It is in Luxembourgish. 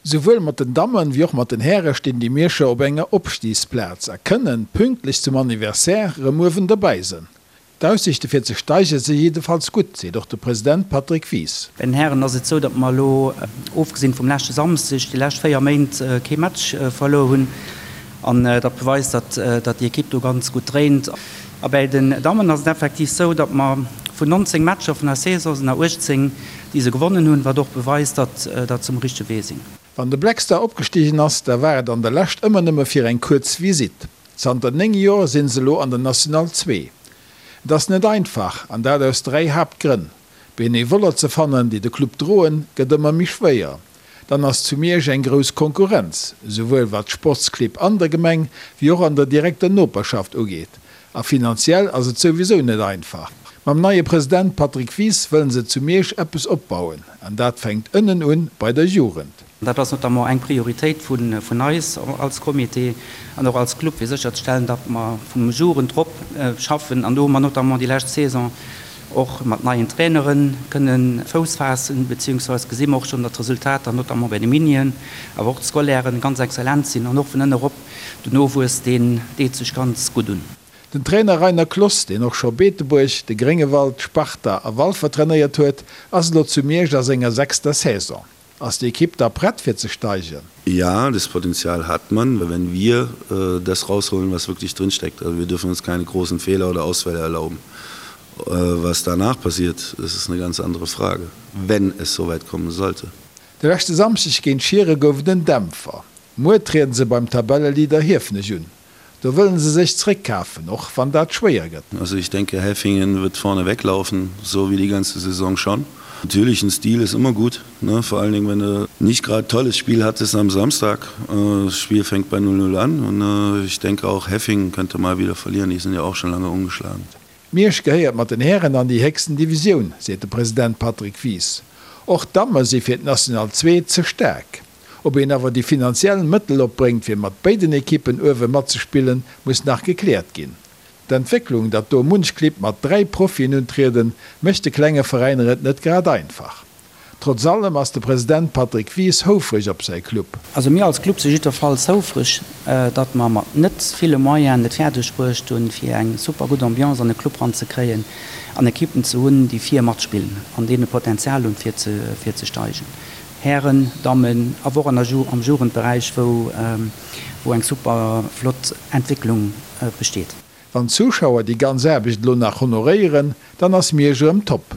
Souwuel mat den Dammen wéi och mat den Häre stinn déi Mierscher op enger Opstigsplaz a kënnen pünktlech zum Anniversaire rëm uewen derbäi sënn. D'Aussiichte fir ze steige si jiddefalls gutt, seet och de President Patrick Wies. Bei den Hären ass et sou, datt mer elo, ofgesinn vum leschte Samsdeg, déi lescht 4 Méint kee Match verluer hunn. An dat beweist, datt déi Ekipp do ganz gutt dréint. A bäi den Dammen ass et effektiv sou, datt mer vun 19 Matcher vun der Saison sinn der 18, déi se gewonnen hunn, wat och beweist, datt datt se um richtege Wee sinn. Wann de Black Star opgestigen ass, da war et an der Lescht ëmmer nëmme fir eng kuerz Visitt. Zanter 9 Joer sinn se elo an der National 2. Et ass net einfach, an dat aus 3 Haaptgrënn, Benevoller ze fannen, déi de Club droen, gëtt ëmmer méi schwéier. Dann ass zu Miersch eng grouss Konkurrenz, souwuel wat d'Sportsclibb an der Gemeng, wéi och an der direkter Noperschaft ugeet. A finanziell ass et souwisou net einfach. Mam neie President Patrick Wies wëllen se zu Miersch eppes opbauen, an dat fänkt ënnen un, bei der Jugend. Dat ass notamment eng Prioritéit vun eis als Comité an och als Club, fir sécherzestellen, datt mer vum Jugend rop schaffen. An do hu mer notamment déi lescht Saison och mat neien Trainere kënne Fouss faassen, beziehungsweise gesi mer och schonn, datt d'Resultater notamment bei de Minien, awer och d'Scolairen ganz exzellent sinn an och vun ënne rop den Nowuess, deen deet sech ganz gutt un. Den Trainer Rainer Kloss, deen och scho Beetebuerg, de Gréngewald, Sparta a Walfer trainéiert huet, ass elo zu Miersch a senger sechster Saison. Ass déi Ekipp da prett fir ze steigen? Ja, das Potenzial hat man, wenn wir das rausholen, was wirklich drinsteckt. Also wir dürfen uns keine großen Fehler oder Ausfälle erlauben. Was danach passiert, das ist eine ganz andere Frage, wenn es soweit kommen sollte. De leschte Samschdeg géint Schiere gouf et en Dämpfer. Muer trieden se beim Tabelleleader Hiefenech un. Do wëllen se sech zréckkafen, och wann dat schwéier gëtt. Also ich denke Heffingen wird vorne weglaufen, so wie die ganze Saison schon. Natürlich ein Stil ist immer gut, ne? Vor allen Dingen wenn du nicht grad tolles Spiel hattest am Samstag. Das Spiel fängt bei 0, 0 an und ich denke auch Heffingen könnte mal wieder verlieren, die sind ja auch schon lange ungeschlagen. Miersch gehéiert mat den Hären an déi héchsten Divisioun, seet de President Patrick Wies. Och d'Damme si fir d'National 2 ze staark. Ob een awer déi finanziell Mëttel opbréngt fir mat béiden Ekippen uewe matzespillen, muss nach gekläert ginn. D'Entwécklung, datt do munch Clibb mat 3 Profien untrieden, mécht de klenge Veräiner et net grad einfach. Trotz allem ass de President Patrick Wies houfreg op säi Club. Also mir als Club si jiddwerfalls houfreg, datt mer mat net ville Moyenen et fäerdeg bruecht hunn, fir eng super gutt Ambiance an de Club ranzekréien an Ekippen ze hunn, déi vir matspillen an deene Potenzial hunn, fir ze steigen. Hären, Dammen, awer och an der am Jugendberäich, wou wou eng super flott Entwécklung besteet. Wann d'Zuschauer déi ganz Aarbecht elo nach honoréieren, dann ass Miersch erëm top.